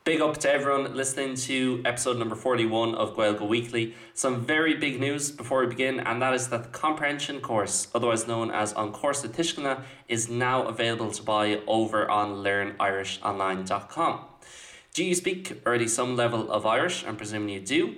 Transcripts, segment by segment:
Big up to everyone listening to episode number 41 of Gaeilge Weekly. Some very big news before we begin, and that is that the comprehension course, otherwise known as An Cúrsa Tuisceana, is now available to buy over on learnirishonline.com. Do you speak already some level of Irish? I'm presuming you do.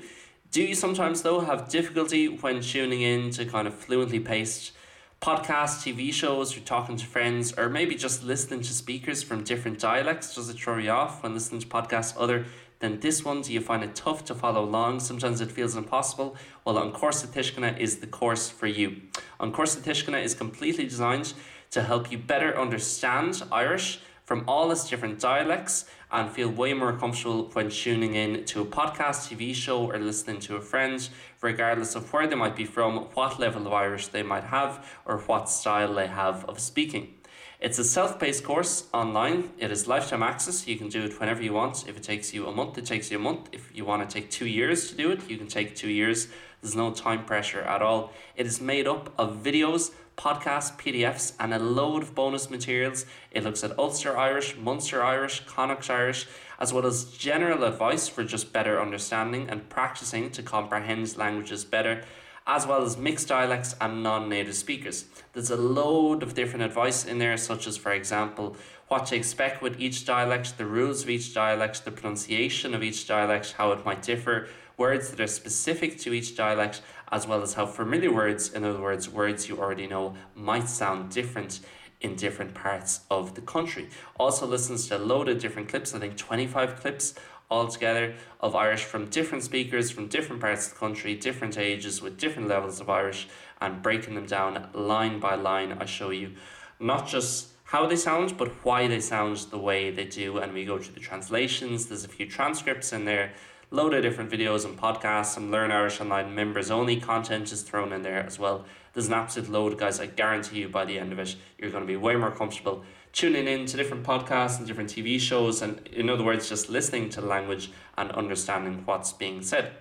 Do you sometimes though have difficulty when tuning in to kind of fluently paced podcasts, TV shows, or talking to friends, or maybe just listening to speakers from different dialects? Does it throw you off when listening to podcasts other than this one? Do you find it tough to follow along? Sometimes it feels impossible. Well, An Cúrsa Tuisceana is the course for you. An Cúrsa Tuisceana is completely designed to help you better understand Irish from all its different dialects and feel way more comfortable when tuning in to a podcast, TV show or listening to a friend, regardless of where they might be from, what level of Irish they might have, or what style they have of speaking. It's a self-paced course online. It is lifetime access. You can do it whenever you want. If it takes you a month, it takes you a month. If you want to take two years to do it, you can take two years. There's no time pressure at all. It is made up of videos, podcasts, PDFs, and a load of bonus materials. It looks at Ulster Irish, Munster Irish, Connacht Irish, as well as general advice for just better understanding and practicing to comprehend languages better, as well as mixed dialects and non-native speakers. There's a load of different advice in there, such as, for example, what to expect with each dialect, the rules of each dialect, the pronunciation of each dialect, how it might differ, words that are specific to each dialect, as well as how familiar words, in other words, words you already know, might sound different in different parts of the country. Also listens to a load of different clips, I think 25 clips altogether of Irish from different speakers from different parts of the country, different ages with different levels of Irish and breaking them down line by line. I show you not just how they sound, but why they sound the way they do. And we go through the translations. There's a few transcripts in there, load of different videos and podcasts, some Learn Irish Online members only content is thrown in there as well. There's an absolute load, guys. I guarantee you by the end of it, you're going to be way more comfortable tuning in to different podcasts and different TV shows, and in other words, just listening to the language and understanding what's being said.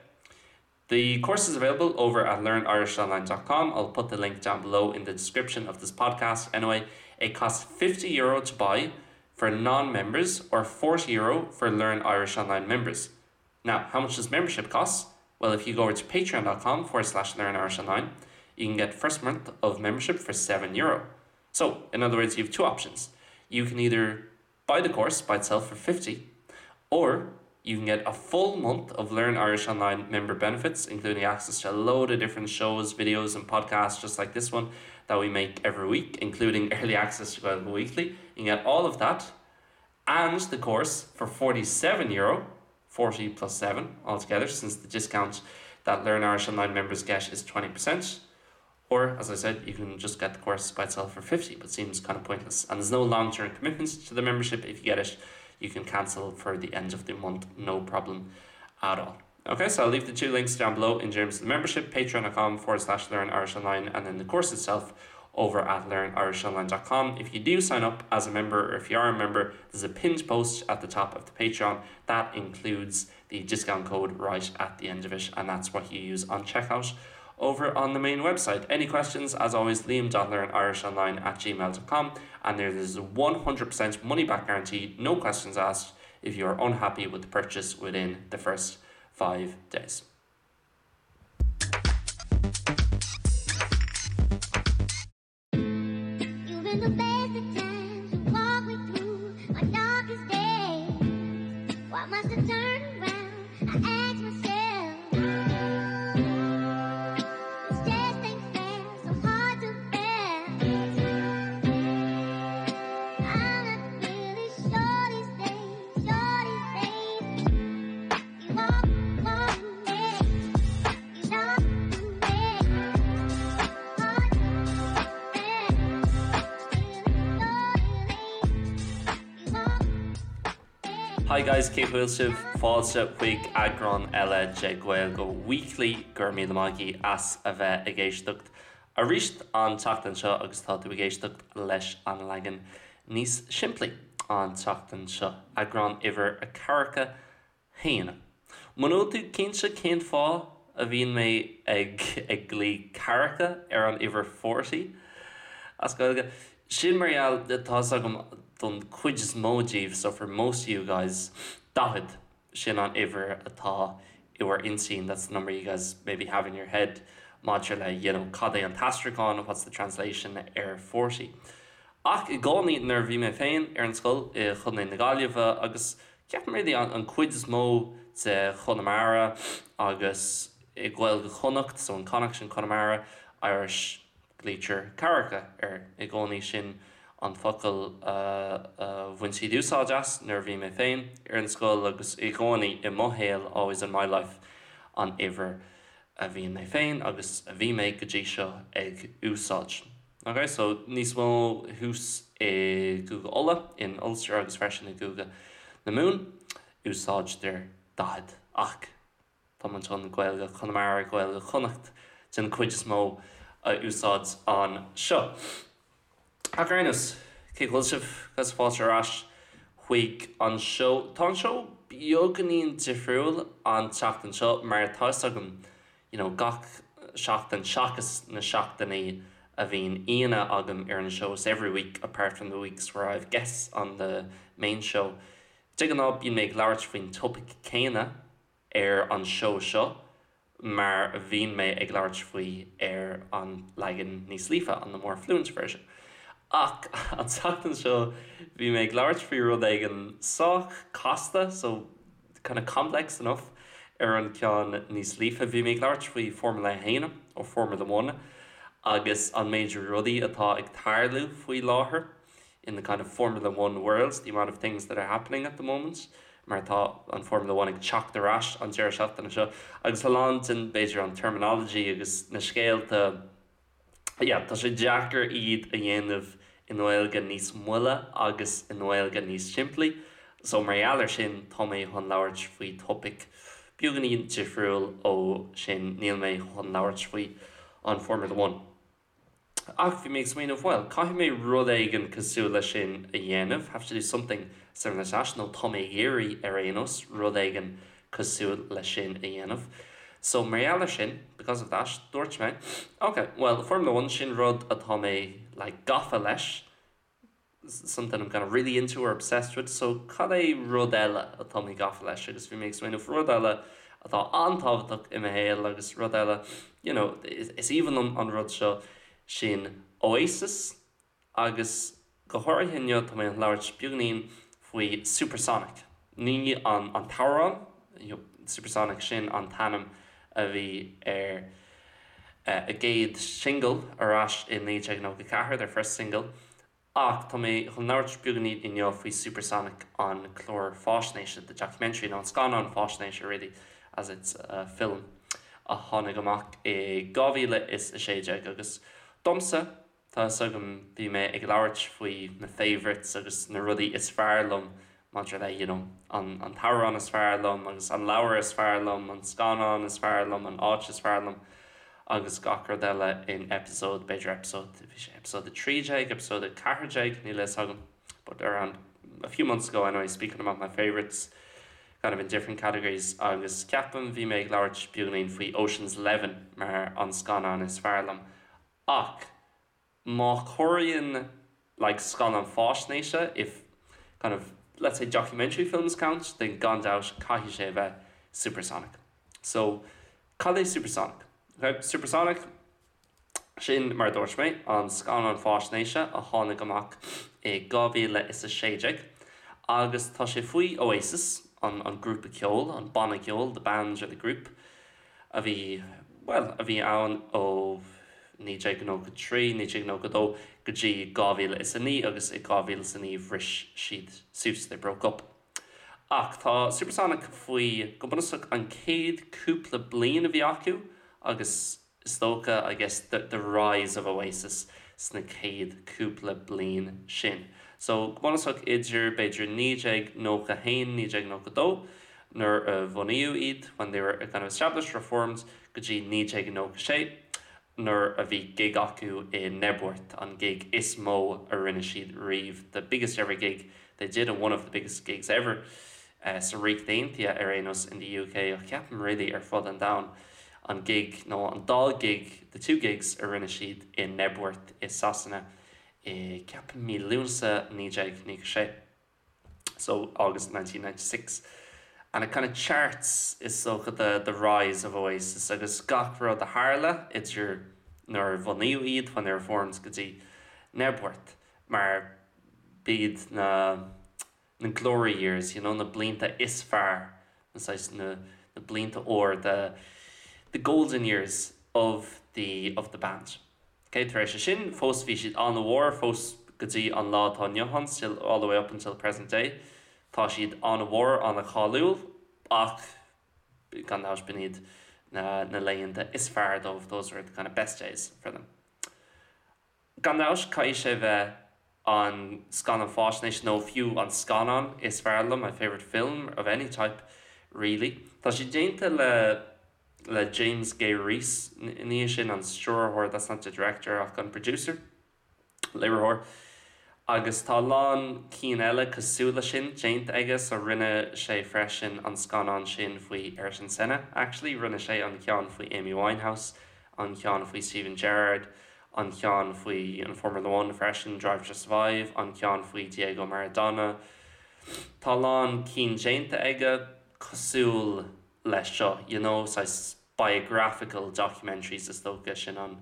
The course is available over at learnirishonline.com. I'll put the link down below in the description of this podcast. Anyway, it costs 50 euro to buy for non-members or 40 euro for Learn Irish Online members. Now, how much does membership cost? Well, if you go over to patreon.com forward slash learn Irish Online, you can get first month of membership for 7 euro. So, in other words, you have two options. You can either buy the course by itself for 50 or you can get a full month of Learn Irish Online member benefits, including access to a load of different shows, videos, and podcasts just like this one that we make every week, including early access to Gaeilge Weekly. You can get all of that and the course for 47 euro, 40 plus 7 altogether, since the discount that Learn Irish Online members get is 20%. Or, as I said, you can just get the course by itself for 50, but seems kind of pointless. And there's no long-term commitments to the membership. If you get it, you can cancel for the end of the month, no problem at all. Okay, so I'll leave the two links down below in terms of the membership, patreon.com forward slash learn Irish Online, and then the course itself over at learnirishonline.com. If you do sign up as a member, or if you are a member, there's a pinned post at the top of the Patreon that includes the discount code right at the end of it, and that's what you use on checkout over on the main website. Any questions, as always, liam.learnirishonline at gmail.com and there is a 100% money back guarantee, no questions asked, if you are unhappy with the purchase within the first five days. You've been the best of times You walk me through my darkest days. Why must I turn around? I ask myself. This just ain't fair, so hard to bear. I'm not really sure these days, sure these days. You walk, walk me, you know me. Hard to bear. You walk. Hi guys, cén chaoi a bhfuil sibh? Fáilte chuig eagrán eile de Gaeilge Weekly. Go raibh míle maith agaibh as a bheith ag éisteacht arís an tseachtain seo agus tá tú ag éisteacht leis an leagan níos simplí an tseachtain seo, eagrán uimhir a ceathracha haon. Muna bhfuil tú cinnte cén fáth a bhíonn mé ag ag glaoch ceathracha ar an uimhir forty as Gaeilge, sin mar gheall, tá 'fhios agam don chuid is mó díbh, so for most of you guys, 40, sin an uimhir atá i bhur intinn, that's the number you guys maybe have in your head maidir le you know cad é an t-aistriúchán, what's the translation ar 40. Ach i gcónaí nuair a bhí mé féin ar an scoil i Chontae na Gaillimhe agus ceapaim really an cuid is mó de Chonamara agus i Gaeilge Chonnacht, so in Connacht in Conamara, Irish glaoitear ceathracha air i gcónaí, sin an focal a bhain siad úsáid as nuair a bhí mé féin ar an scoil agus i gcónaí i mo shaol, always in my life, an uimhir a bhíonn mé féin agus a bhí mé go dtí seo ag úsáid. Ok, so níos mó thuas i gCúige Uladh, in Ulster agus freisin i gCúige na Mumhan, úsáidtear 40 ach Tá muid chun Gaeilge Chonamara, Gaeilge Chonnacht den chuid is mó a úsáid anseo. Ach ar aon nós, cén chaoi a bhfuil sibh? Agus fáilte ar ais chuig an seó. Tá an seó beagáinín difriúil an tseachtain seo mar tá fhios agam you know gach seachtain seachas na seachtainí a bhíonn aíonna agam ar an seó, so every week apart from the weeks where I have guests on the main show. De ghnáth bíonn mé ag labhairt faoin topaic céanna ar an seó seo mar a bhíonn mé ag labhairt faoi ar an leagan níos líofa, on the more fluent version. Ach an tseachtain seo bhí mé ag labhairt faoi rud éigin sách casta, so kind of complex enough, ar an ceann níos líofa. Bhí mé ag labhairt faoi Formula 1, or Formula One, agus an méid rudaí atá ag tarlú faoi láthair. in the kind of Formula One world, the amount of things that are happening at the moment, mar tá an Formula One ag teacht ar ais an deireadh seachtaine seo, agus a lán den, b'fhéidir, an terminology agus na scéalta, yeah, tá sé deacair iad a dhéanamh i nGaeilge níos moille agus i nGaeilge níos simplí. So mar gheall ar sin, tá mé chun labhairt faoi topaic beagáinín difriúil ó sin, níl mé chun labhairt faoi an Formula One. Ach bhí mé ag smaoineamh, bhuel, caithfidh mé rud éigin cosúil leis sin a dhéanamh, have to do something similar to that, nó tá mé ag iarraidh, ar aon nós, rud éigin cosúil leis sin a dhéanamh. So, mar gheall ar sin, because of that, dúirt mé, ok, bhuel, Formula One, sin rud atá mé, like, gafa leis, something I'm kind of really into or obsessed with, so cad é rud eile atá mé gafa leis agus bhí mé ag smaoineamh rud eile atá an-tábhachtach i mo shaol agus rud eile you know is aoibhinn liom an rud seo sin Oasis agus go háirithe inniu tá mé ag labhairt beagáinín faoi Supersonic ní an an t-amhrán you know Supersonic sin an t-ainm a bhí ar a gcéad singil ar ais i 1994, their first single, ach tá mé chun labhairt beagáinín inniu faoi Supersonic, an clár faisnéise, the documentary, nó an scannán faisnéise really, as it's a film, a tháinig amach i 2016 agus domsa, Tá fhios agam, bhí mé ag labhairt faoi na favourites agus na rudaí is fearr liom maidir le you know an an t-amhrán is fearr liom agus an leabhar is fearr liom, an scannán is fearr liom, an áit is fearr liom agus gach rud eile in episode, b'fhéidir episode, bhí sé episode 13, episode 14, níl a fhios agam but around a few months ago anyway, speaking about my favourites kind of in different categories agus ceapaim bhí mé ag labhairt beagáinín faoi Ocean's Eleven mar an scannán is fearr liom Ach má chomhaireann like scannán faisnéise, if kind of let's say documentary films count, then gan dabht caithfidh sé a bheith Supersonic. So, cad é Supersonic? Ok, Supersonic, sin mar a dúirt mé, an scannán faisnéise a tháinig amach i 2016 agus tá sé faoi Oasis, an an grúpa ceoil, an banna ceoil, the band or the group, a bhí, bhuel, a bhí ann ó 1993, 1992 go dtí 2009 agus i 2009 bhris siad suas, they broke up. Ach tá Supersonic faoi, go bunúsach, an chéad cúpla bliain a bhí acu agus is dócha, I guess, the, the rise of Oasis sna chéad cúpla bliain sin. So, go bunúsach idir, b'fhéidir, 1991, 1992, nuair a bunaíodh iad, when they were kind of established or formed, go dtí 1996 nuair a bhí gig acu i Knebworth, an gig is mó a rinne siad riamh, the biggest ever gig they did and one of the biggest gigs ever sa Ríocht Aontaithe ar aon nós, in the UK, ach ceapaim really ar fud an domhain, an gig nó an dá gig, the two gigs a rinne siad i Knebworth i Sasana i ceapaim mí Lúnasa 1996. So August 1996. And it kind of charts, is dócha, the the rise of Oasis agus gach rud a tharla idir nuair a bunaíodh iad, when they were formed, go dtí Knebworth, mar b'iad na na glory years, you know, na blianta is fearr, na saghas na na blianta óir, the the golden years of the of the band. Ok, tar éis sin, fós bhí siad an-mhór, fós go dtí an lá atá inniu ann, still all the way up until present day, tá siad an-mhór, an-cháiliúil, ach gan dabht b'in iad na na laethanta is fearr dóibh, those were the kind of best days for them. Gan dabht, caithfidh sé bheith an scannán fáisnéis nó fiú an scannán is fearr liom, my favourite film of any type, really. Tá sé déanta le le James Gay-Rees, ní hé sin an stiúrthóir, that's not the director, ach an producer, léiritheoir. Agus tá a lán cinn eile cosúil leis sin déanta aige, so rinne sé freisin an scannán sin faoi Ayrton Senna, actually, rinne sé an ceann faoi Amy Winehouse, an ceann faoi Steven Gerrard, an ceann faoi an Formula One freisin, Drive to Survive, an ceann faoi Diego Maradona. Tá a lán cinn déanta aige cosúil leis seo, you know, saghas biographical documentaries is dócha, sin an,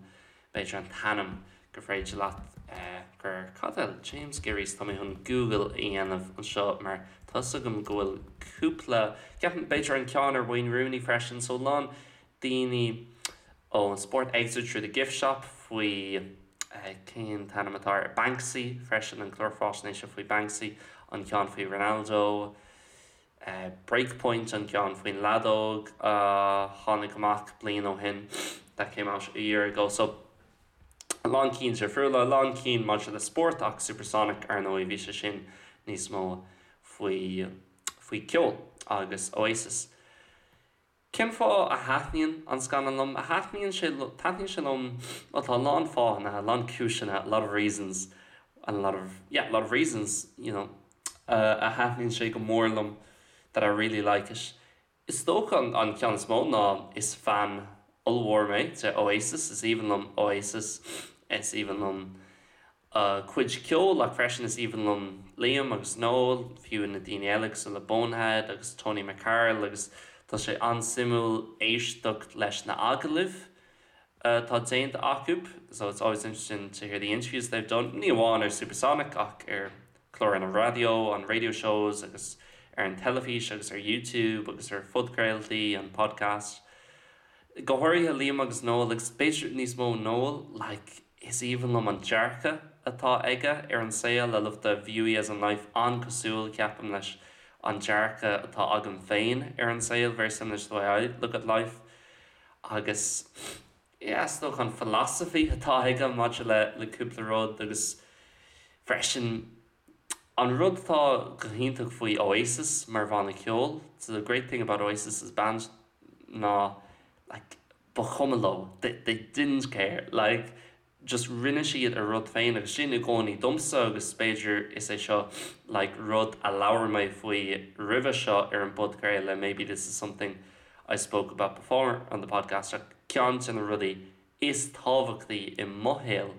b'fhéidir an t-ainm gur féidir leat gur, cad eile, James Gay-Rees, tá mé chun Google a dhéanamh anseo mar tá 'fhios agam go bhfuil cúpla, ceapaim b'fhéidir an ceann ar Wayne Rooney freisin, so a lán daoine ón spórt, Exit Through the Gift Shop faoi cén t-ainm atá air, Banksy freisin, an clár fáisnéise faoi Banksy, an ceann faoi Ronaldo, Breakpoint, an ceann faoin leadóg a tháinig amach bliain ó shin, that came out a year ago. So, a lán cinn difriúla, a lán cinn maidir le spórt ach Supersonic, ar ndóigh, bhí sé sin níos mó faoi faoi ceol agus Oasis. Cén fáth a thaitníonn an scannán liom? A thaitníonn sé taitníonn sé liom, bhuel tá a lán fáthanna, a lán cúiseanna, a lot of reasons and a lot of, yeah, a lot of reasons, you know, a thaitníonn sé go mór liom, that I really like it. Is dócha an ceann is mó ná is fan ollmhór mé de Oasis, is aoibhinn liom Oasis, is aoibhinn liom a gcuid ceoil ach freisin is aoibhinn liom Liam agus Noel, fiú na daoine eile cosúil le Bonehead agus Tony McCarroll agus tá sé an-suimiúil éisteacht leis na agallaimh atá déanta acu so it's always interesting to hear the interviews they've done, ní amháin ar Supersonic ach ar chláranna raidió, on radio shows agus ar an teilifís agus ar YouTube agus ar phodchraoltaí, an podcast. Go háirithe Liam agus Noel agus b'fhéidir níos mó Noel, like, Is aoibhinn liom an dearcadh atá aige ar an saol, I love the view he has on life, an-cosúil, ceapaim, leis an dearcadh atá agam féin ar an saol, very similar to the way I look at life. Agus, yeah, is dócha an philosophy atá aige maidir le le cúpla rud agus freisin an rud atá go hiontach faoi Oasis mar bhanna ceoil, so the great thing about Oasis as a band ná like, ba chuma leo, they they didn't care, like just rinne siad a rud féin agus sin i gcónaí domsa agus b'fhéidir is é seo like rud a labhair mé faoi roimhe seo ar an bpodchraoladh, maybe this is something I spoke about before on the podcast ach ceann de na rudaí is tábhachtaí i mo shaol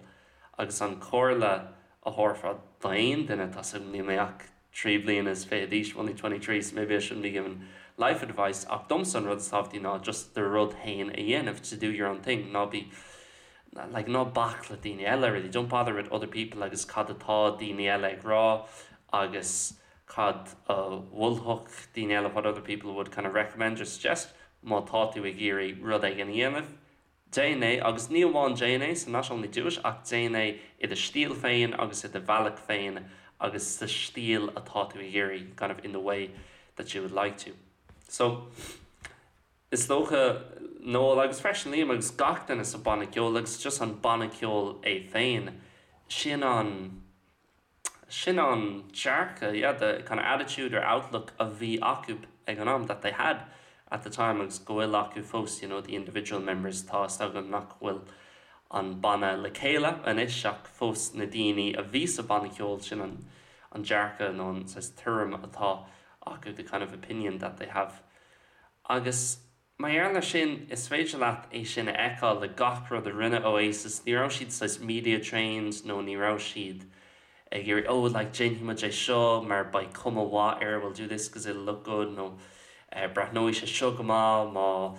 agus an comhairle a thabharfá d'aon duine, tá 's agam níl mé ach 23 bliana d'aois, I'm only 23 so maybe I shouldn't be giving life advice ach domsa an rud is tábhachtaí ná just do rud féin a dhéanamh, to do your own thing, ná bí like ná bac le daoine eile really, don't bother with other people agus cad atá daoine eile ag rá agus cad a mholfadh daoine eile, what other people would kind of recommend or suggest má tá tú ag iarraidh rud éigin a dhéanamh. Déan é, agus ní amháin déan é, so not only do it, ach déan é i do stíl féin agus i do bhealach féin agus sa stíl atá tú ag iarraidh, kind of in the way that you would like to. So, is dócha, Noel agus freisin Liam agus gach duine sa banna ceoil agus just an banna ceoil é féin, sin an, Sin an dearcadh, yeah, the kind of attitude or outlook a bhí acu ag an am, that they had at the time agus go bhfuil acu fós, you know, the individual members, tá 'fhios agam nach bhfuil an banna le chéile anois ach fós na daoine a bhí sa bhanna ceoil, sin an an dearcadh nó an saghas tuairim atá acu, the kind of opinion that they have. Agus. Mar gheall air sin, is féidir leat é sin a fheiceáil le gach rud a rinne Oasis, ní raibh siad saghas media trained nó ní raibh siad ag iarraidh oh like déanfaidh muid é seo mar beidh cuma mhaith air, we'll do this because it'll look good nó Breathnóidh sé seo go maith má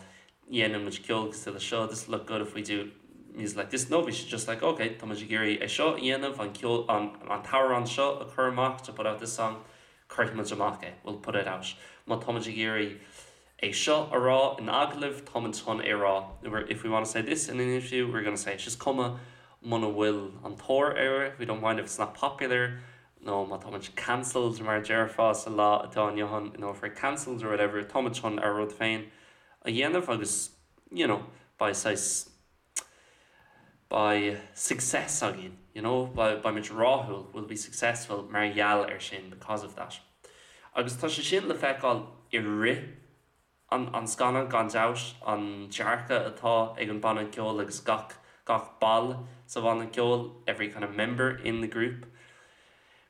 dhéanann muid ceol cosúil le seo, this will look good if we do music like this. No, bhí siad just like ok, tá muid ag iarraidh é seo a dhéanamh, an ceol, an an t-amhrán seo a chur amach, to put out this song, cuirfidh muid amach é, we'll put it out. Má tá muid ag iarraidh é seo a rá in agallamh, tá muid chun é a rá, if we want to say this in an interview, we're gonna say it. Is cuma muna bhfuil an tóir air, we don't mind if it's not popular, nó má tá muid cancelled mar a déarfá sa lá atá inniu ann, you know, if we're cancelled or whatever, tá muid chun ár rud féin a dhéanamh agus, you know, beidh saghas, beidh success againn, you know, beidh muid rathúil, we'll be successful mar gheall air sin, because of that. Agus tá sé sin le feiceáil i rith an an scannán gan dabht, an dearcadh atá ag an banna ceoil agus gach gach ball sa bhanna ceoil, every kind of member in the group.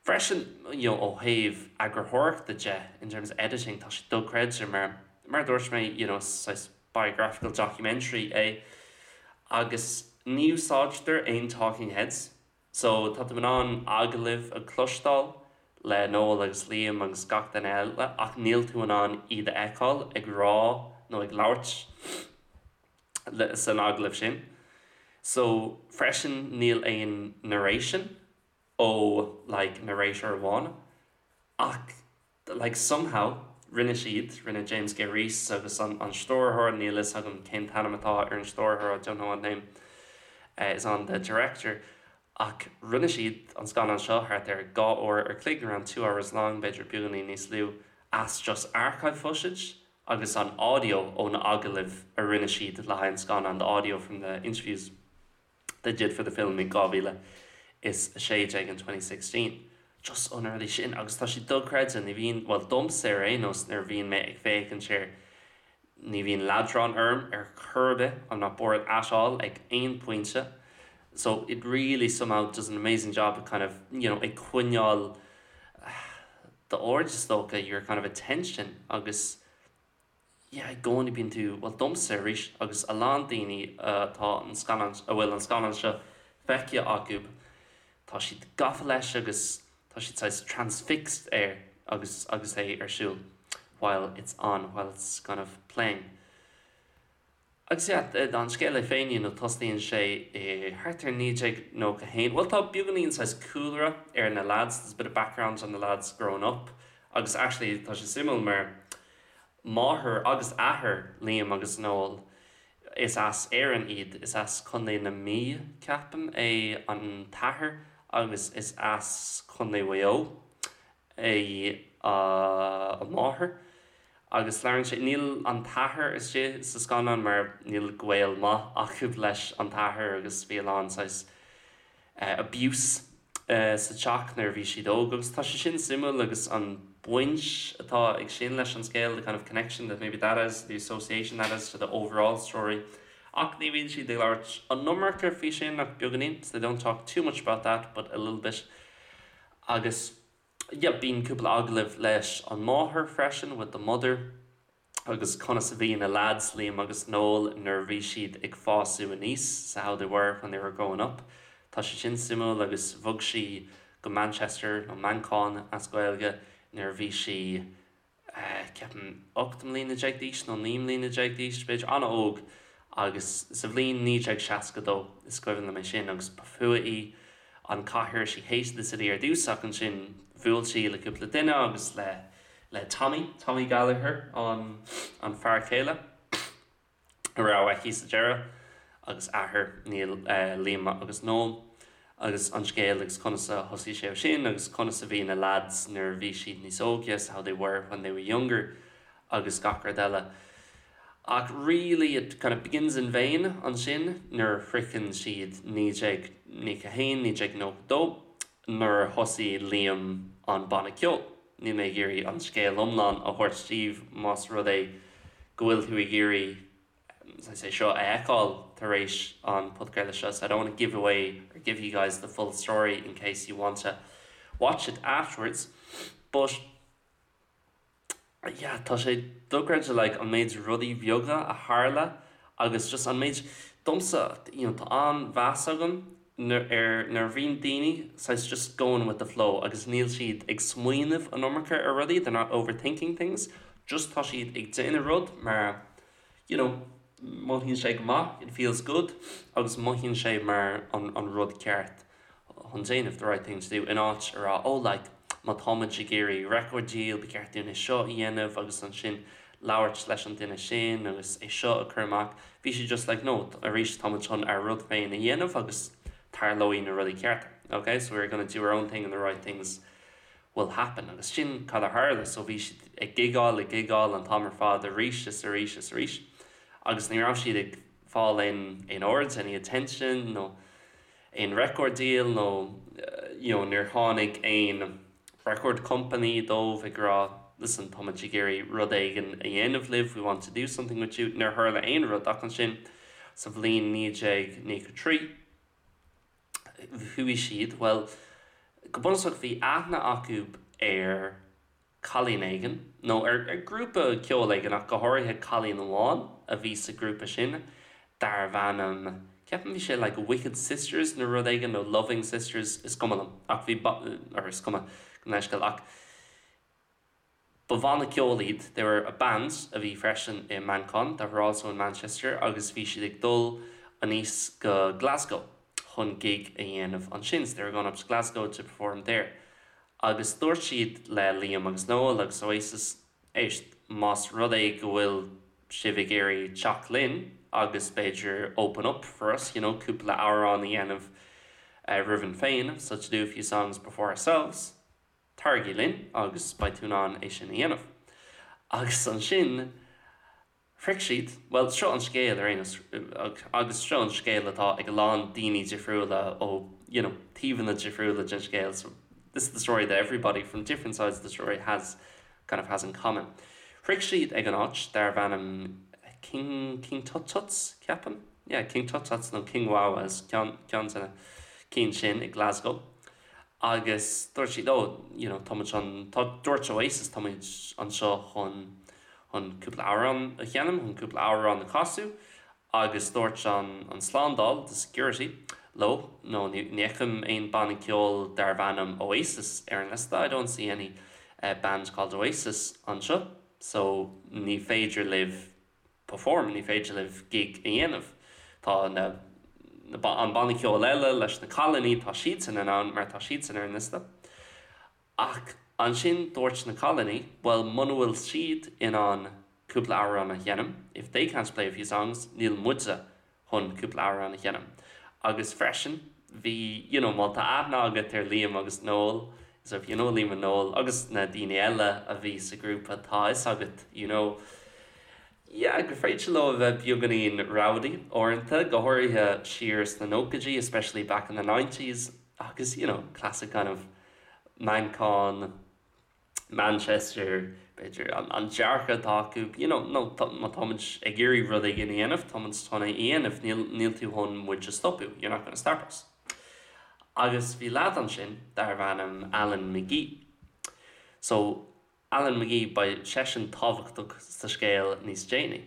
Freisin, you know, ó thaobh eagarthóireachta de, in terms of editing, tá sé dochreidte mar, mar a dúirt mé, you know, saghas biographical documentary é agus ní úsáidtear aon talking heads. So, tá tú in ann agallaimh a chloisteáil le Noel agus Liam agus gach duine eile ach níl tú in ann iad a fheiceáil ag rá nó ag labhairt san agallamh sin. So, freisin níl aon narration ó like narrator amháin ach like somehow rinne siad, rinne James Gay-Rees agus an an stiúrthóir, níl fhios agam cén t-ainm atá ar an stiúrthóir, I don't know what name is on the director, ach rinne siad an scannán seo thart ar dhá uair ar chloig, around 2 hours long, b'fhéidir beagáinín níos lú, as just archive footage agus an audio ó na agallaimh a rinne siad le haghaidh an scannán, the audio from the interviews they did for the film in 2016 in 2016. Just ó na rudaí sin agus tá sé dochreidte, ní bhíonn, bhuel domsa ar aon nós nuair a bhíonn mé ag féachaint air, ní bhíonn leadrán orm ar chor ar bith, I'm not bored at all ag aon pointe. So it really somehow does an amazing job of kind of, you know, ag coinneáil d'aird is dócha, your kind of attention agus yeah, i gcónaí bíonn tú, bhuel domsa arís agus a lán daoine atá an scannán, a bhfuil an scannán seo feicthe acu, tá siad gafa leis agus tá siad saghas transfixed air agus agus é ar siúl while it's on, while it's kind of playing. Agus yeah, an scéal é féin, you know, tosaíonn sé i thart ar 1991, bhuel tá beagáinín saghas cúlra ar na lads, there's a bit of background on the lads growing up, agus actually tá sé suimiúil mar máthair agus athair Liam agus Noel, is as Éirinn iad, is as Contae na Mí, ceapaim, é an t-athair agus is as Contae Mhaigh Eo é an mháthair. Agus labhrann sé, níl an t-athair istigh sa scannán mar níl gaol maith acu leis an t-athair agus bhí a lán saghas abuse sa teach nuair a bhí siad óg agus tá sé sin suimiúil agus an baint atá ag sin leis an scéal, the kind of connection that maybe that has, the association that has to the overall story. Ach ní bhíonn siad ag labhairt an iomarca faoi sin ach beagáinín, so they don't talk too much about that but a little bit. Agus yeah, bíonn cúpla agallamh leis an máthair freisin, with the mother, agus conas a bhí na lads, Liam agus Noel, nuair a bhí siad ag fás aníos, so how they were when they were growing up. Tá sé sin suimiúil agus bhog sí go Manchester nó Manchain as Gaeilge nuair a bhí sí ceapaim 18 mbliana d'aois nó 19 mbliana d'aois, b'fhéidir an-óg agus sa bhliain 1962 is cuimhin liom é sin agus ba fuath léi an cathair she hated the city ar dtús ach ansin bhuail sí le cúpla duine agus le le Tommy, Tommy Gallagher an an fear céile a raibh aici sa deireadh agus athair Neil Liam agus Noel agus an scéal agus conas a thosaigh sé sin agus conas a bhí na lads nuair a bhí siad níos óige, so how they were when they were younger agus gach rud eile. Ach really it kind of begins in vain ansin nuair a shroicheann siad 1991, 1992 nuair a thosaigh Liam an banna ceoil. Níl mé ag iarraidh an scéal iomlán a thabhairt daoibh más rud é go bhfuil tú ag iarraidh é seo a fheiceáil tar éis an podchraoladh seo, so I don't want to give away or give you guys the full story in case you want to watch it afterwards. But yeah, tá sé dochreidte like an méid rudaí beaga a tharla agus just an méid domsa you know, tá an-mheas agam ar nuair a bhíonn daoine saghas just going with the flow agus níl siad ag smaoineamh an iomarca ar rudaí, they're not overthinking things. Just tá siad ag déanamh rud mar you know mothaíonn sé go maith, it feels good, agus mothaíonn sé mar an an rud ceart chun déanamh, the right thing to do, in áit a rá oh like má táimid ag iarraidh record deal ba cheart dúinn é seo a dhéanamh agus ansin labhairt leis an duine sin agus é seo a chur amach. Bhí siad just like no, arís táimid chun ár rud féin a dhéanamh agus tarlóidh na rudaí cearta. Ok, so we're gonna do our own thing and the right things will happen. Agus sin cad a tharla, so bhí siad ag gigeáil, ag gigeáil an t-am ar fad arís is arís is arís agus ní raibh siad ag fáil aon aon aird, any attention nó aon record deal nó you know níor tháinig aon record company dóibh ag rá listen táimid ag iarraidh rud éigin a dhéanamh libh, we want to do something with you. Níor tharla aon rud ach ansin sa bhliain 1993 chuaigh siad, bhuel go bunúsach bhí aithne acu ar cailín éigin, nó ar ghrúpa ceoil éigin ach go háirithe cailín amháin a bhí sa ghrúpa sin darbh ainm, ceapaim bhí sé like Wicked Sisters nó rud éigin nó Loving Sisters, is cuma liom ach bhí, or is cuma gabh mo leithscéal ach ba bhanna ceoil iad, they were a band a bhí freisin i Manchain, that were also in Manchester agus bhí siad ag dul aníos go Glasgow chun gig a dhéanamh ansin, so they were going up to Glasgow to perform there. Agus dúirt siad le Liam agus Noel agus Oasis, éist, más rud é go bhfuil sibh ag iarraidh teacht linn agus b'fhéidir open up for us, you know, cúpla amhrán a dhéanamh romhainn féin, so to do a few songs before ourselves, taraigí linn agus beidh tú in ann é sin a dhéanamh. Agus ansin shroich siad, bhuel, seo an scéal ar aon nós, agus seo an scéal atá ag a lán daoine difriúla ó, you know, taobhanna difriúla den scéal, so this is the story that everybody from different sides of the story has, kind of has in common. Shroich siad ag an áit darbh ainm King, King Tut Tuts, ceapaim? Yeah, King Tut Tuts nó King Wah-Wahs, ceann, ceann de na cinn sin i Glasgow. Agus dúirt siad, oh, you know, táimid chun, tá, dúirt Oasis, táimid anseo chun, chun cúpla amhrán a sheinm, chun cúpla amhrán a chasadh, agus dúirt an, an slándáil, the security, leo, no, ní, ní fheicim aon banna ceoil darbh ainm Oasis ar an liosta, I don't see any band called Oasis anseo, so ní féidir libh perform, ní féidir libh gig a dhéanamh. Tá na, na, an banna ceoil eile leis na cailíní, tá siadsan in ann mar tá siadsan ar an liosta. Ach ansin dúirt na cailíní, bhuel muna bhfuil siad in ann cúpla amhrán a sheinm, if they can't play a few songs, níl muide chun cúpla amhrán a sheinm. Agus freisin, bhí, you know, má tá aithne agat ar Liam agus Noel, so if you know Liam and Noel, agus na daoine eile a bhí sa ghrúpa, tá a fhios agat, you know, yeah, gur féidir leo a bheith beagáinín rowdy uaireanta, go háirithe siar sna nóchaidí, especially back in the nineties, agus, you know, classic kind of Manchain, Manchester, b'fhéidir, an dearcadh atá acu, you know, nó má táimid ag iarraidh rud éigin a dhéanamh, táimid chun é a dhéanamh, níl, níl tú chun muid a stopadh, you're not gonna stop us. Agus bhí leaid ansin darbh ainm Alan McGee. So, Alan McGee, beidh seisean tábhachtach sa scéal níos déanaí.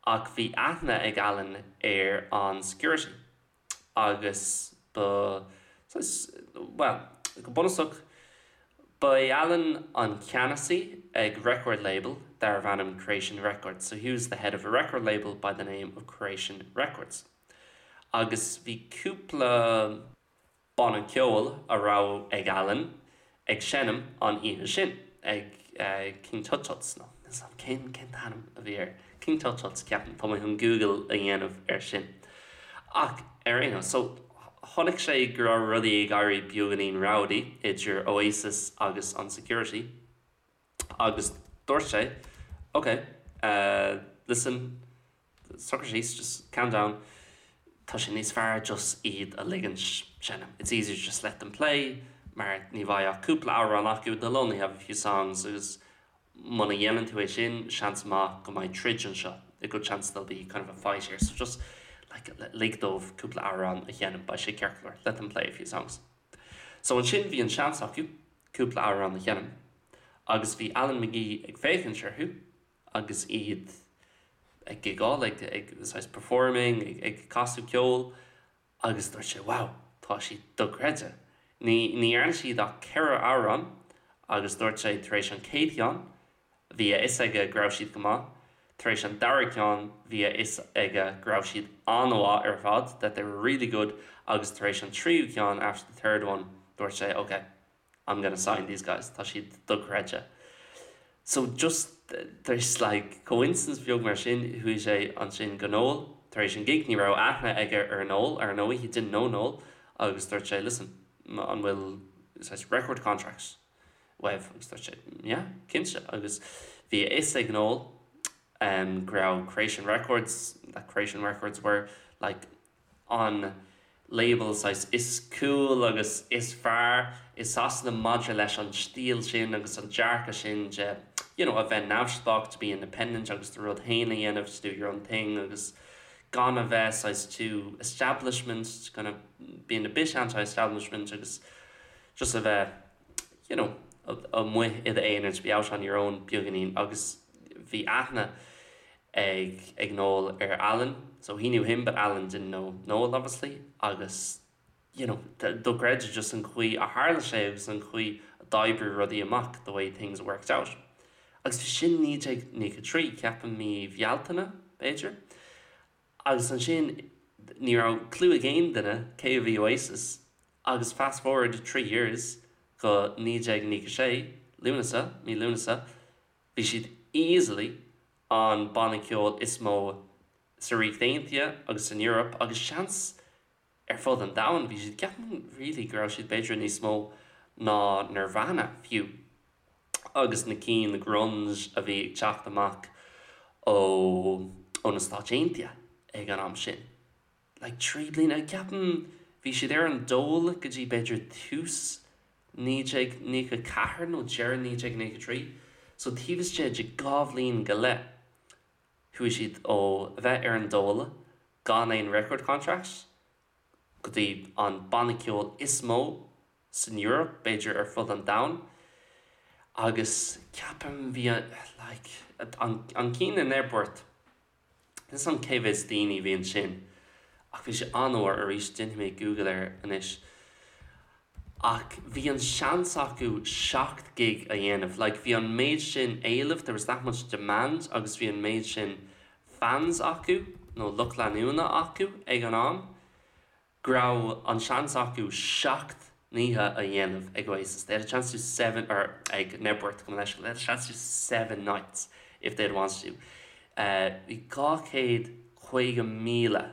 Ach bhí aithne ag Alan ar an security. agus ba, saghas, bhuel, go bunúsach, ba é Alan an ceannasaí ag record label darbh ainm Creation Records, so he was the head of a record label by the name of Creation Records. Agus bhí cúpla banna ceoil a raibh ag Alan ag seinm an oíche sin ag King Tut Tuts, nó níl 's a'm cén cén t-ainm a bhí air, King Tut Tuts ceapaim, tá mé chun Google a dhéanamh air sin. Ach ar aon nós, so chonaic sé go raibh rudaí ag éirí beagáinín rowdy idir Oasis agus an security agus dúirt sé ok, listen, Socraigh síos, just calm down, tá sé níos fearr just iad a ligint seinm, it's easier to just let them play mar ní bheidh ach cúpla amhrán acu, they'll only have a few songs agus muna dhéanann tú é sin, seans maith go mbeidh troid anseo, a good chance there'll be kind of a fight here, so just like lig dóibh cúpla amhrán a sheinm, beidh sé ceart go leor, let them play a few songs. So ansin bhí an seans acu cúpla amhrán a sheinm agus bhí Alan McGee ag féachaint orthu agus iad ag gigeáil, ag, ag, saghas performing, ag, ag casadh ceoil agus dúirt sé wow, tá siad dochreidte. Ní, ní dhearna siad ach ceithre amhrán agus dúirt sé tar éis an chéad cheann, Bhí a fhios aige go raibh siad go maith. Tar éis an dara ceann, bhí a fhios aige go raibh siad an-mhaith ar fad, that they were really good, agus tar éis an tríú ceann, after the third one, dúirt sé, ok, I'm gonna sign these guys, tá siad dochreidte. So just there's like coincidence beag mar sin, chuaigh sé ansin go Noel, tar éis an gig, ní raibh aithne aige ar Noel, ar ndóigh, he didn't know Noel, agus dúirt sé, listen, an bhfuil saghas record contracts uaibh? Agus dúirt sé, yeah, cinnte. Agus bhí a fhios ag Noel um, go raibh Creation Records, that Creation Records were like an label saghas is cool agus is fearr i Sasana maidir leis an stíl sin agus an dearcadh sin de you know, a bheith neamhspleách to be independent agus do rud féin a dhéanamh to do your own thing agus gan a bheith saghas too establishment kind of being a bit anti-establishment agus just a bheith you know, amuigh i d'aonar to be out on your own beagáinín agus bhí aithne ag ag Noel ar Alan so he knew him but Alan didn't know Noel obviously agus you know dochreidte just an chaoi a tharla sé agus an chaoi a d'oibrigh rudaí amach the way things worked out. Agus bhí sin 1993 ceapaim mí Bhealtaine b'fhéidir agus ansin ní raibh clue ag aon duine cé a bhí Oasis agus fast forward 3 years go 1996 Lúnasa mí Lúnasa bhí siad easily an banna ceoil is mó sa Ríocht Aontaithe agus san Eoraip agus seans ar fud an domhain. Bhí siad ceapaim really go raibh siad b'fhéidir níos mó ná Nirvana fiú agus na cinn grunge a bhí ag teacht amach ó ó na Stáit Aontaithe ag an am sin. Like 3 bliana, ceapaim bhí siad ar an dól go dtí b'fhéidir tús 1994 nó deireadh 1993, so taobh istigh de dhá bhliain go leith chuaigh siad ó a bheith ar an dól gan aon record contract go dtí an banna ceoil is mó san Eoraip, b'fhéidir ar fud an domhain agus ceapaim bhí like an an cinn in Knebworth Níl 'fhios a'm cé mhéad daoine a bhí ansin ach bhí sé an-mhór, arís déanfaidh mé Google air anois, ach bhí an seans acu 7 gig a dhéanamh, like bhí an méid sin éilimh, there was that much demand agus bhí an méid sin fans acu nó lucht leanúna acu ag an am. go raibh an seans acu 7 n-oíche a dhéanamh ag Oasis, they had a chance to do seven, or ag Knebworth, gabh mo leithscéal, they had a chance to do seven nights if they had wanted to. Bhí 250,000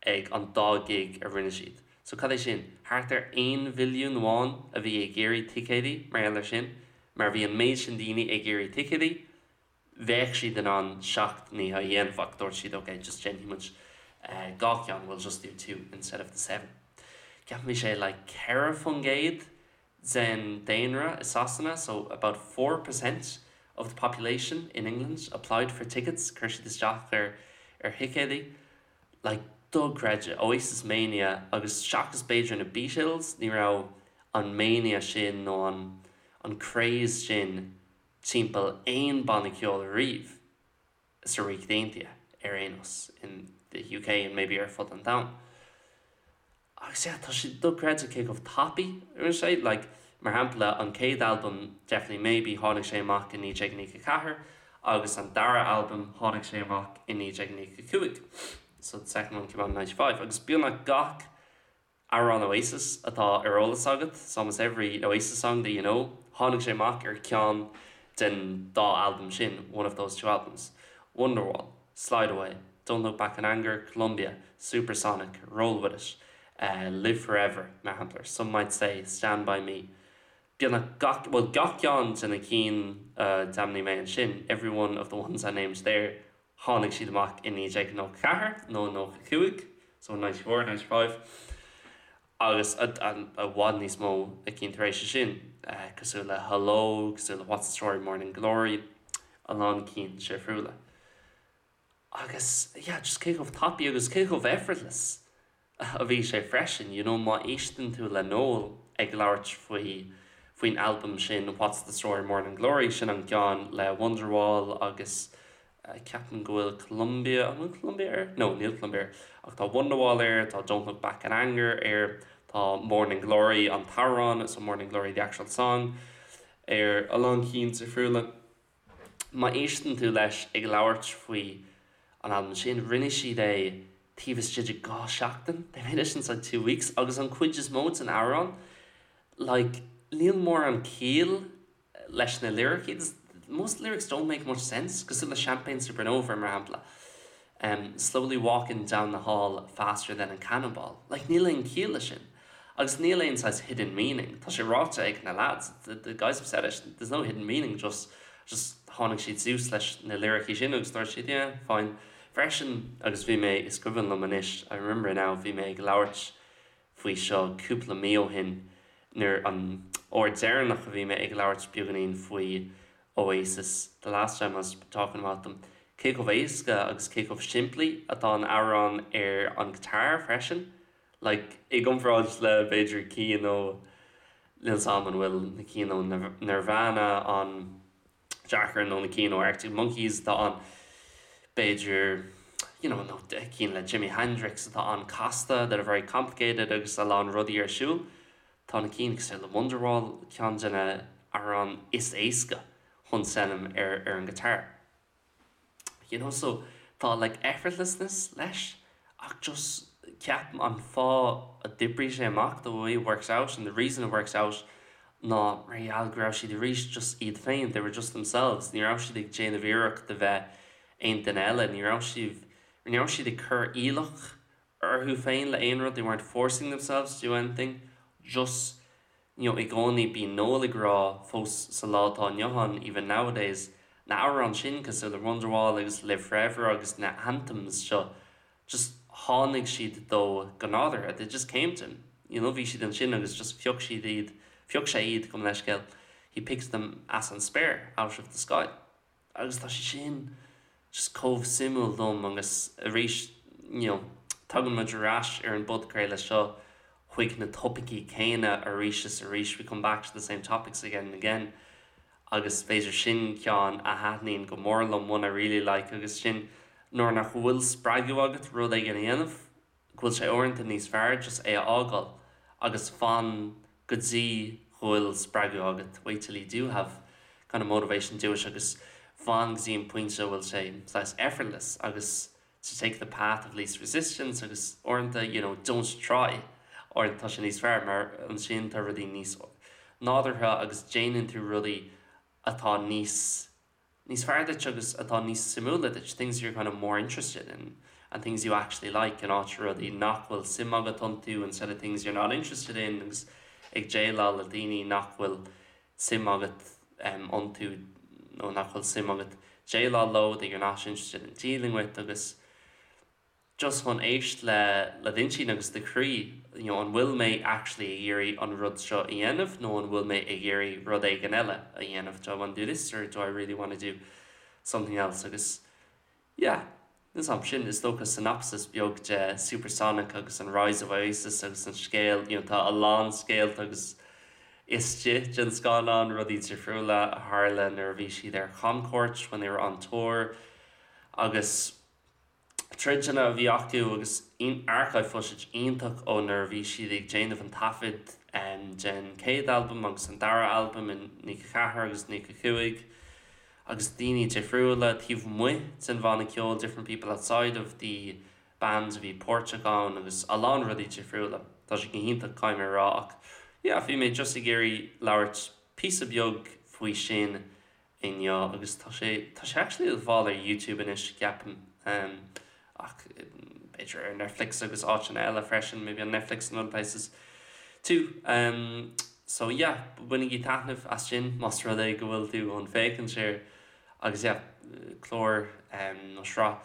ag an dá gig a rinne siad. So cad é sin? Thart ar 1 mhilliún amháin a bhí ag iarraidh ticéidí mar gheall air sin, mar bhí an méid sin daoine ag iarraidh ticéidí. bheadh siad in ann 7 n-oíche a dhéanamh ach dúirt siad ok just déanfaidh muid dhá cheann, we'll just do two instead of the seven. Ceapaim bhí sé like 4% den daonra i Sasana so about 4% of the population in England applied for tickets, chuir siad isteach ar ar thicéidí. Like dochreidte, Oasis Mania agus seachas b'fhéidir na Beatles ní raibh an mania sin nó an an craze sin timpeall aon banna ceoil ariamh sa Ríocht Aontaithe ar aon nós, in the UK and maybe ar fud an domhain. Agus yeah, tá sé dochreidte cé chomh tapaidh a rinne sé, like mar shampla an chéad albam Definitely Maybe tháinig sé amach i 1994 agus an dara albam tháinig sé amach i 1995, so the second one came out in 95 agus beagnach gach Amhrán Oasis atá ar eolas agat, it's almost every Oasis song that you know, tháinig sé amach ar cheann den dá albam sin, one of those two albums. Wonderwall, Slide Away, Don't Look Back in Anger, Columbia, Supersonic, Roll With It, Live Forever, mar shampla, Some Might Say, Stand By Me. Beagnach gach, bhuel gach ceann de na cinn a d'ainmnigh mé ansin, every one of the ones I named there, Tháinig siad amach i 1994 nó 95, so 94, 95, agus i bhfad níos mó cinn tar éis sin, cosúil le Hello, cosúil le What's the Story Morning Glory, a lán cinn difriúla. Agus yeah, just cé chomh tapaidh agus cé chomh effortless a bhí sé freisin, you know, má éisteann tú le Noel ag labhairt faoi faoin albam sin What's the Story Morning Glory, sin an ceann le Wonderwall agus ceapaim go bhfuil Columbia, an bhfuil Columbia air? No, níl Columbia air, ach tá Wonderwall air, tá Don't Look Back in Anger air, tá Morning Glory an t-amhrán, so Morning Glory the actual song, air, a lán cinn difriúla. Má éisteann tú leis ag labhairt faoi an albam sin, rinne siad é taobh istigh de 2 seachtain, they made it inside 2 weeks, agus an chuid is mó den amhrán, like, níl mórán ciall leis na liricí, most lyrics don't make much sense, cosúil le Champagne Supernova mar shampla, um, slowly walking down the hall faster than a cannonball, like níl aon chiall leis sin. Agus níl aon saghas hidden meaning, tá sé ráite ag na lads, the, the guys have said it, there's no hidden meaning, just, just tháinig siad suas leis na liricí sin agus dúirt siad, yeah, fine. Freisin, agus bhí mé, is cuimhin liom anois, I remember now, bhí mé ag labhairt faoi seo cúpla mí ó shin nuair an uair deireanach a bhí mé ag labhairt beagáinín faoi Oasis, the last time I was talking about them, cé chomh éasca agus cé chomh simplí atá an amhrán ar an guitar freisin, like i gcomparáid le b'fhéidir cinn ó níl 'fhios a'm an bhfuil na cinn ó Nirvana an deacair nó na cinn ó Arctic Monkeys atá an b'fhéidir you know, nó cinn le Jimi Hendrix atá an-casta that are very complicated agus a lán rudaí ar siúl. Tá na cinn cosúil le Wonderwall ceann de na amhráin is éasca chun seinm ar ar an guitar. You know, so tá like effortlessness leis ach just ceapaim an fáth a d'oibrigh sé amach the way it works out and the reason it works out ná mar gheall go raibh siad arís just iad féin, they were just themselves, ní raibh siad ag déanamh iarracht de bheith aon duine eile, ní raibh siad, ní raibh siad ag cur iallach orthu féin le aon rud, they weren't forcing themselves to do anything, just you know i gcónaí bíonn Noel ag rá fós sa lá atá inniu ann even nowadays na amhráin sin cosúil le Wonderwall agus Live Forever agus na anthems seo just tháinig siad dó go nádúrtha they just came to him you know bhí siad ansin agus just phioc siad iad phioc sé iad gabh mo leithscéal he picked them as an spéir out of the sky. Agus tá sé sin just chomh suimiúil dom agus arís you know tagann muid ar ais ar an bpodchraoladh seo chuig na topaicí céanna arís is arís, we come back to the same topics again and again agus b'fhéidir sin ceann a thaitníonn go mór liom, one I really like agus sin nuair nach bhfuil spreagadh agat rud éigin a dhéanamh, go bhfuil sé uaireanta níos fearr just é a fhágáil agus fan go dtí go bhfuil spreagadh agat, wait till you do have kind of motivation do it agus fan go dtí an pointe a bhfuil sé saghas effortless agus to take the path of least resistance agus uaireanta you know don't try uaireanta tá sé níos fearr mar ansin tá rudaí níos nádúrtha agus déanann tú rudaí atá níos níos fearr duit agus atá níos suimiúla duit, things you're kind of more interested in and things you actually like in áit rudaí nach bhfuil suim agat iontu instead of things you're not interested in agus ag déileáil le daoine nach bhfuil suim agat iontu nó nach bhfuil suim agat déileáil leo that you're not interested in dealing with agus just chun éist le le d'intinn agus do chroí, you know, an bhfuil mé actually ag iarraidh an rud seo a dhéanamh nó an bhfuil mé ag iarraidh rud éigin eile a dhéanamh, do I want to do this or do I really want to do something else agus yeah, is am sin is dócha synopsis beag de Supersonic agus an Rise of Oasis agus an scéal, you know, tá a lán scéalta agus istigh den scannán, rudaí difriúla a tharla nuair a bhí siad ar chamchuairt when they were on tour agus troideanna a bhí acu agus archive footage iontach ó nuair a bhí siad ag déanamh an taifead den chéad albam agus an dara albam in 94 agus 95 agus daoine difriúla taobh amuigh den bhanna ceoil different people outside of the band a bhí páirteach ann agus a lán rudaí difriúla. Tá sé go hiontach caithfidh mé a rá ach yeah bhí mé just ag iarraidh labhairt píosa beag faoi sin inniu agus tá sé, tá sé actually le fáil ar YouTube anois ceapaim ach b'fhéidir ar Netflix agus áiteanna eile freisin, maybe on Netflix and other places too. So yeah, bainigí taitneamh as sin más rud é go bhfuil tú chun féachaint air agus yeah, clár nó sraith,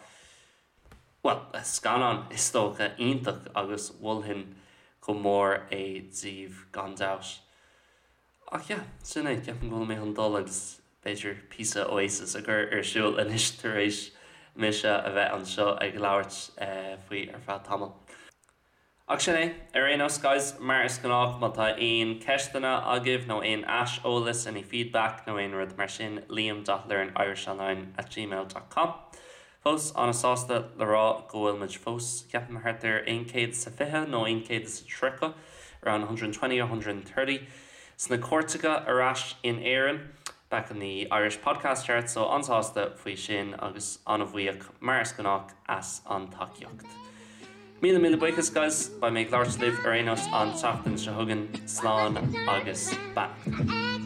bhuel, scannán is dócha iontach agus mholfainn go mór é daoibh gan dabht. Ach yeah, sin é, ceapaim go bhfuil mé chun dul agus b'fhéidir píosa Oasis a chur ar siúl anois tar éis mise a bheith anseo ag labhairt faoi ar feadh tamaill. Ach sin é, ar aon nós guys, mar is gnách má tá aon ceisteanna agaibh nó aon aiseolas, any feedback nó aon rud mar sin, liam dot learnirishonline at gmail dot com. Fós an-sásta le rá go bhfuil muid fós, ceapaim, thart ar 120 nó 130, around 120 or 130, sna cairteacha ar ais in Éirinn. Back in the Irish Podcast Chart, so an-sásta faoi sin agus an-bhuíoch mar is gnách as an tacaíocht. Míle míle buíochas guys, beidh mé ag labhairt libh ar aon nós an tseachtain seo chugainn, slán agus beannacht.